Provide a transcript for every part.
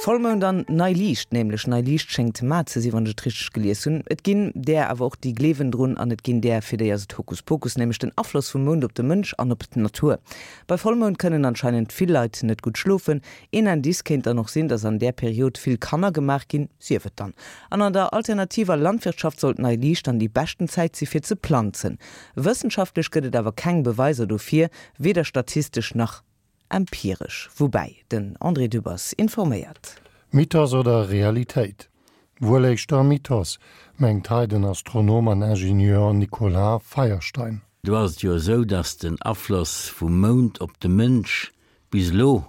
Vollmound an nei Liicht, nämlech nei Liicht schéngt mar ze sinn, wann ech et richteg gelies hunn. Et ginn där awer och, déi gleewen drun an et ginn där, fir déi ass et Hokuspokus, nämlech den Afloss vum Mound op de Mënsch an op d'Natur. Bei Vollmound kënnen anscheinend vill Leit net gutt schlofen. Een Indice kéint dann och sinn, dass an där Period vill Kanner gemaach ginn, sief et dann. An an der alternativer Landwirtschaft sollt nei Liicht dann déi beschten Zäit si fir ze planzen. Wëssenschaftlech gëtt et awer keng Beweiser dofir, weder statistesch nach empiresch. Woubäi, den André Dübbers informéiert. Mythos oder Realitéit? Wuel éischter Mythos, mengt hei den Astronom an Ingenieur Nicolas Feierstein. Do ass et jo esou, datt den Afloss vum Mound op de Mënsch bis elo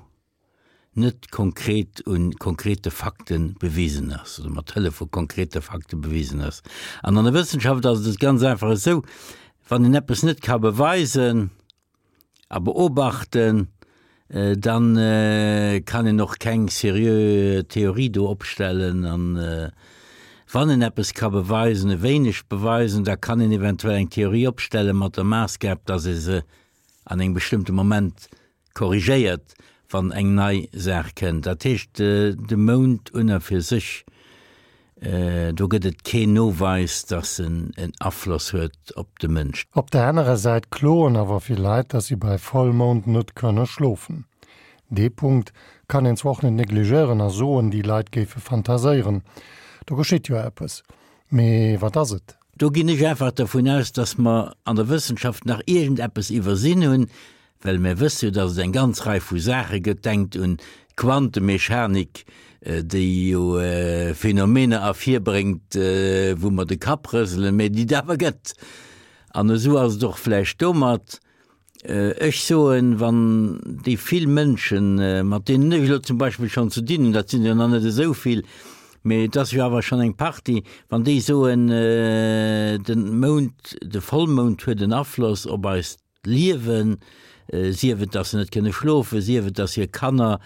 net konkret un konkrete Fakte bewisen ass oder mat Hëllef vu konkrete Fakte bewisen ass. An an der Wëssenschaft ass et ganz einfach esou, wann een eppes net ka beweisen a beobachten, dann kann een och keng seriö Theorie do opstellen. An wann een eppes ka beweisen, e wéineg beweisen, da kann een eventuell eng Theorie opstellen mat der Maassgab, dass ee se an engem bestëmmte Moment korrigéiert, wann eng nei Saach kënnt. Dat heescht, de Mound un a fir sech, do gëtt et keen Noweis, datt en en Afloss huet op de Mënsch. Op der anerer Säit kloen awer vill Leit, datt si bei Vollmound net kënne schlofen. Dee Punkt kann een zwar och net negligéieren a soen, déi Leit géife fantaséieren. Do geschitt jo eppes. Mee wat ass et? Do ginn ech einfach dervun aus, dass mer an der Wëssenschaft nach iergendeppes iwwersinn hunn, well mir wësse jo, dass et eng ganz Rei vu Saache gëtt, denkt un d'Quantemechanik, déi jo Phänomener ervirbréngt, wou mer de Kapp rëselen, mä déi et awer gëtt. An esou ass et och vläicht domat. Ech soen, wann déi vill Mënschen, mat deenen ech elo zum Beispill schonn ze dinn hunn, dat sinn der nach net esou vill, mee et ass jo awer schonn eng Partie, wann déi soen, de Mound, de Vollmound huet en Afloss op eist Liewen, sief et, datt se net kënne schlofen, sief et, datt hir Kanner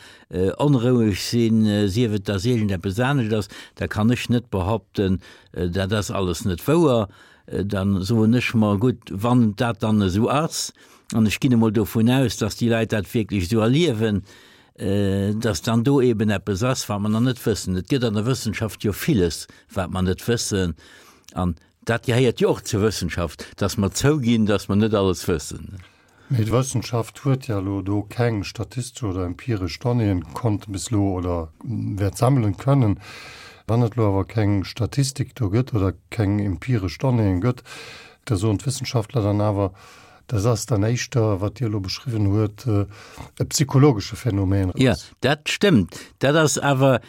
onroueg sinn, sief et, datt iergendeppes anescht ass, da kann ech net behaupten, dat ass alles net wouer. Dann soen ech mer, gutt, wann dat dann esou ass, an ech ginn emol dovun aus, dass déi Leit dat wierklech esou erliewen, dass dann do eben eppes ass, wat mer nach net wëssen. Et gëtt an der Wëssenschaft jo villes, wat mer net wëssen, an dat gehéiert jo och zur Wëssenschaft, dass mer zouginn, dass mer net alles wëssen. Mee d'Wëssenschaft huet ja elo do keng statistesch oder empiresch Donnéeën konnte bis elo oder wäert sammelen kënnen. Wann et elo awer keng Statistik do gëtt oder keng empiresch Donnéeën gëtt, da soen d'Wëssenschaftler dann awer, dat ass dann éischter, wat Dir elo beschriwwen huet, e psychologesche Phänomen. Jo, dat stëmmt. Dat ass awer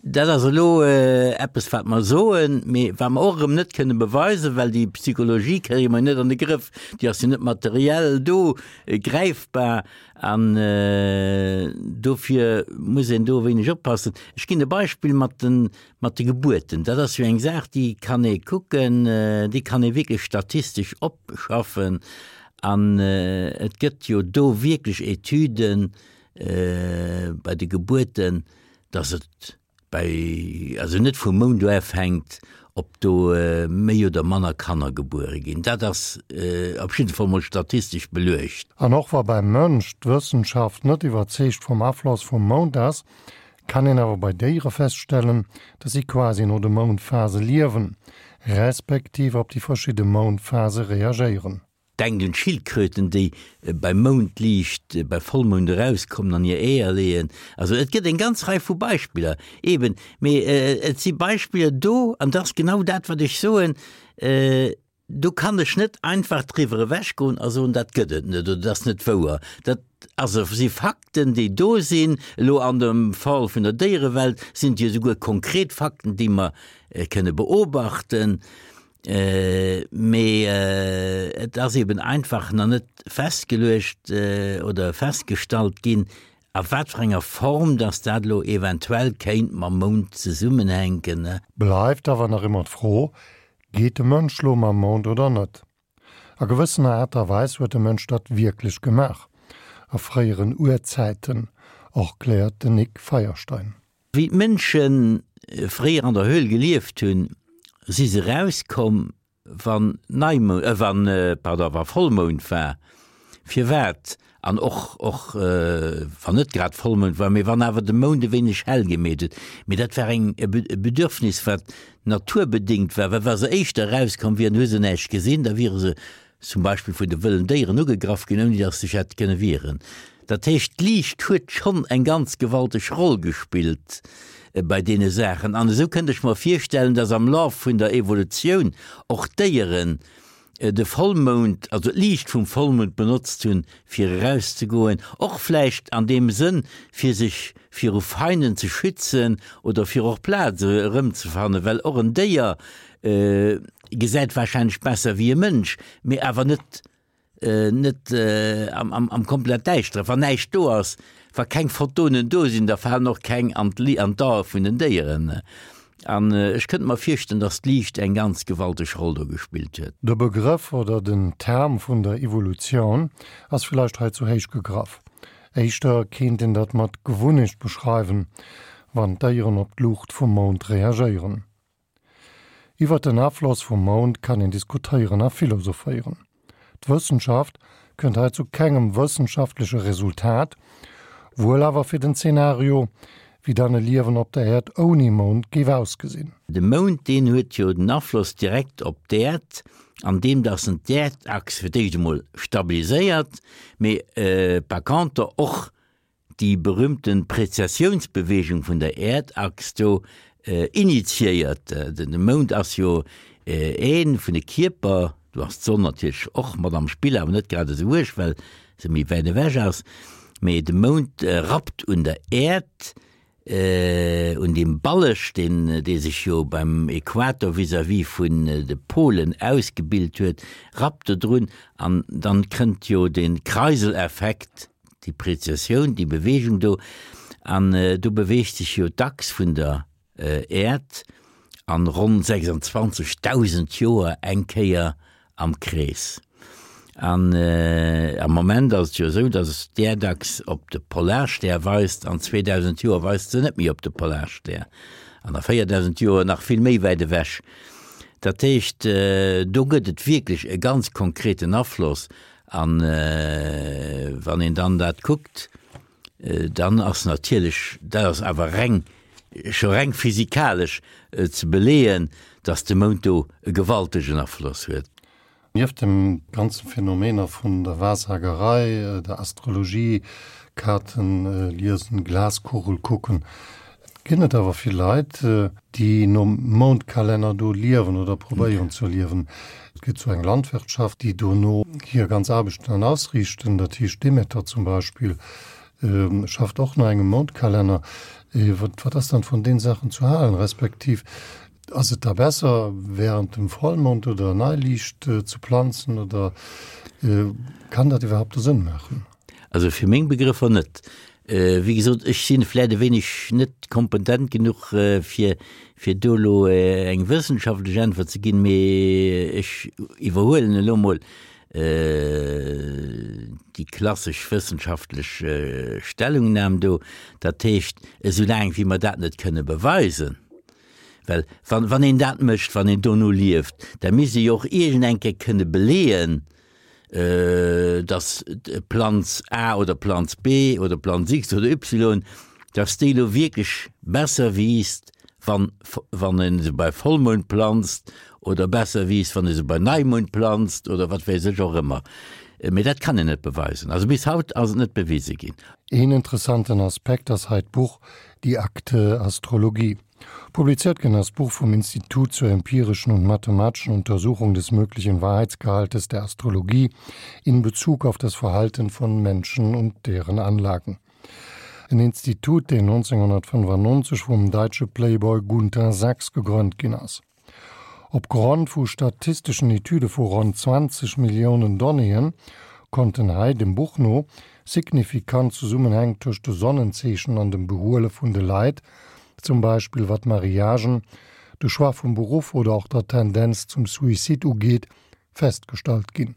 Dat ass elo eppes, wat mer soen, mee wat mer och erëm net kënne beweisen, well déi Psychologie kréie mer net an de Grëff. Déi ass jo net materiell do gräifbar an dofir muss een do e wéineg oppassen. Ech ginn e Beispill mat de, mat de Gebuerten. Dat ass jo eng Saach, déi kann ee kucken, déi kann ee wierklech statistesch opschaffen an et gëtt jo do wierklech Etüden bei de Gebuerten, dass et bei, also net vum Mound u ofhänkt, ob do méi oder manner Kanner gebuere ginn. Dat ass op jidde Fall mol statistesch beluecht. An och wa beim Mënsch d'Wëssenschaft net iwwerzeegt vum Afloss vum Mound ass, kann een awer bei Déiere feststellen, dass si quasi no de Moundphase liewen, respektiv op déi verschidde Moundphase reagéieren. Denkt un d'Schildkröten, déi beim Moundliicht, bei Vollmound erauskommen an hir Eeër leeën. Also et gëtt eng ganz Rei vu Beispiller eben, mee et si Beispiller do, an dat ass genau dat, wat ech soen, do kann ech net einfach driwwer ewechgoen a soen, dat gëtt et net oder dat ass net wouer. Dat also si Fakten, déi do sinn. Elo an dem Fall vun der Déierewelt sinn et jo esouguer konkret Fakten, déi mer kënne beobachten. Mee et ass eben einfach nach net festgeluecht oder festgestallt ginn, a wat fir enger Form dass dat elo eventuell kéint mam Mound zesummenhänken. Bleift awer nach ëmmer d'Fro, Geet de Mënsch lo mam Mound oder net? A gewëssener Aart a Weis huet de Mënsch dat wierklech gemaach, a fréieren Urzäiten, erkläert den Nic Feierstein. Wéi d'Mënsche fréier an der Höhl gelieft hunn, si se erauskomm, wann Neimound, wann, pardon, wa Vollmound war. Firwat? An och, och wann net grad Vollmound war, mee wann awer de Mound e wéineg hell gemeet huet. Mee dat war eng, e Bedürfnis, wat naturbedéngt war, well wa se éischter erauskomm wieren, hu se näischt gesinn, da wiere se zum Beispill vun de wëllen Déieren ugegraff ginn, ouni datt se sech hätte kënne wieren. Dat heescht, d'Liicht huet schonn eng ganz gewalteg Roll gespillt bei deene Saachen. An esou kënnt ech mer virstellen, datt am Laf vun der Evolutioun och d'Déieren de Vollmound, also d'Liicht vum Vollmound benotzt hunn, fir erauszegoen, och vläicht an deem Sënn, fir sech viru Feinden ze schützen oder fir och Plaz erëmzefannen, well och en Déier gesäit warscheinlech besser wéi e Mënsch, mee awer net net am komplett Däischteren. Wann näischt do ass, wa keng Photonen do sinn, da falen och keng an d'Ae vun den Déieren. An ech kënnt mer virstellen, dass d'Liicht eng ganz gewalteg Roll do gespillt huet. De Begrëff oder den Term vun der Evolutioun ass villäicht hei zu héich gegraff. Éischter kéint een dat mat Gewunnecht beschreiwen, wann d'Déieren op d'Luucht vum Mound reagéieren. Iwwert den Afloss vum Mound kann een diskutéieren a philosophéieren. D'Wëssenschaft kënnt hei zu kengem wëssenschaftleche Resultat, wuel awer fir den Zenario, wéi dann e Liewen op der Äerd ouni Mound géif ausgesinn. De Mound, deen huet jo den Afloss direkt op d'Äerd, an deem dass en d'Äerdachs fir d'éischt emol stabiliséiert, mee par conter och déi berühmten Präzessiounsbewegung vun der Äerdachs do initiéiert. De Mound ass jo ee vun de Kierper, do ass d'Sonn natierlech och mat am Spill, awer net grad esou uerg, well se méi wäit ewech ass, mee de Mound rappt un der Äerd, un deem Balleg, deen dee sech jo beim Äquator vis-à-vis vun de Polen ausgebilt huet, rappt do drun an dann kënnt jo de Kreiseleffekt, déi Prezessioun, déi Beweegung do, an do beweegt sech jo d'Achs vun der Äerd an ronn 26.000 Joer eng Kéier am Krees. An am Moment ass et jo esou, datt d'Äerdachs op de Polarstär weist, an 2.000 Joer weist se net méi op de Polarstär, an a 4.000 Joer nach vill méi wäit ewech. Dat heescht, do gëtt et wierklech e ganz konkreten Afloss. An wann een dann dat kuckt, dann ass natierlech, dat ass awer reng, scho reng physikalesch ze beleeën, datt de Mound do e gewaltegen Afloss huet. Nieft dem ganze Phänomener vun der Wahrsagerei, der Astrologie, Kaarten liesen, Glaskugel kucken, ginn et awer vill Leit, déi nom Moundkalenner do liewen oder probéieren ze liewen. Et gëtt sou eng Landwirtschaft, déi dono hir ganz Aarbechten dann ausriichten. Dat heescht Demeter zum Beispill schafft och no engem Moundkalenner. Wat ass dann vun deenen Saachen zu halen? Respektiv ass et da besser während dem Vollmond oder Neiliicht ze planzen oder kann dat iwwerhaupt do Sënn maachen? Also fir meng Begrëffer net. Wéi gesot, ech si vläit e wéineg net kompetent genuch, fir, fir do elo eng wëssenschaftlech Äntwert ze ginn, mee ech iwwerhuelen elo mol déi klassesch wëssenschaftlech Stellungnam do. Dat heescht, esou laang wéi mer dat net kënne beweisen, well wann, wann een dat mécht, wann een dono lieft, da misst ee jo och iergend eng Kéier kënne beleeën, dass Planz A oder Planz B oder Planz X oder Y, dass déi elo wierklech besser wiisst, wann, wann ee se bei Vollmound planzt oder besser wiisst, wann ee se bei Neimound planzt oder wat weess ech och ëmmer. Mee dat kann een net beweisen. Also bis haut ass et net bewise ginn. Een interessanten Aspekt ass hei d'Buch Die Akte Astrologie. Publiziert ginn ass d'Buch vum Institut zur empirischen und mathematischen Untersuchung des möglichen Wahrheitsgehaltes der Astrologie in Bezug auf das Verhalten von Menschen und deren Anlagen. En Institut, deen 1995 vum däitsche Playboy Gunter Sachs gegrënnt ginn ass. Op Grond vu statisteschen Etüde vu ronn 20 Milliounen Donnéeën konnten hei, dem Buch no, signifikant Zesummenhäng tëscht de Sonnenzeechen an dem Behuele vun de Leit, zum Beispill wat Mariagen, de Choix vum Beruff oder och der Tendenz zum Suicide ugeet, festgestallt ginn.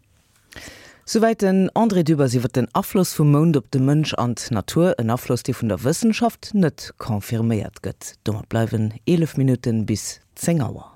Souwäit den André Dübbers iwwer den Afloss vum Mound op de Mënsch an d'Natur, en Afloss, dee vun der Wëssenschaft net confirméiert gëtt. Domat bleiwen 11 Minutten bis 10 Auer.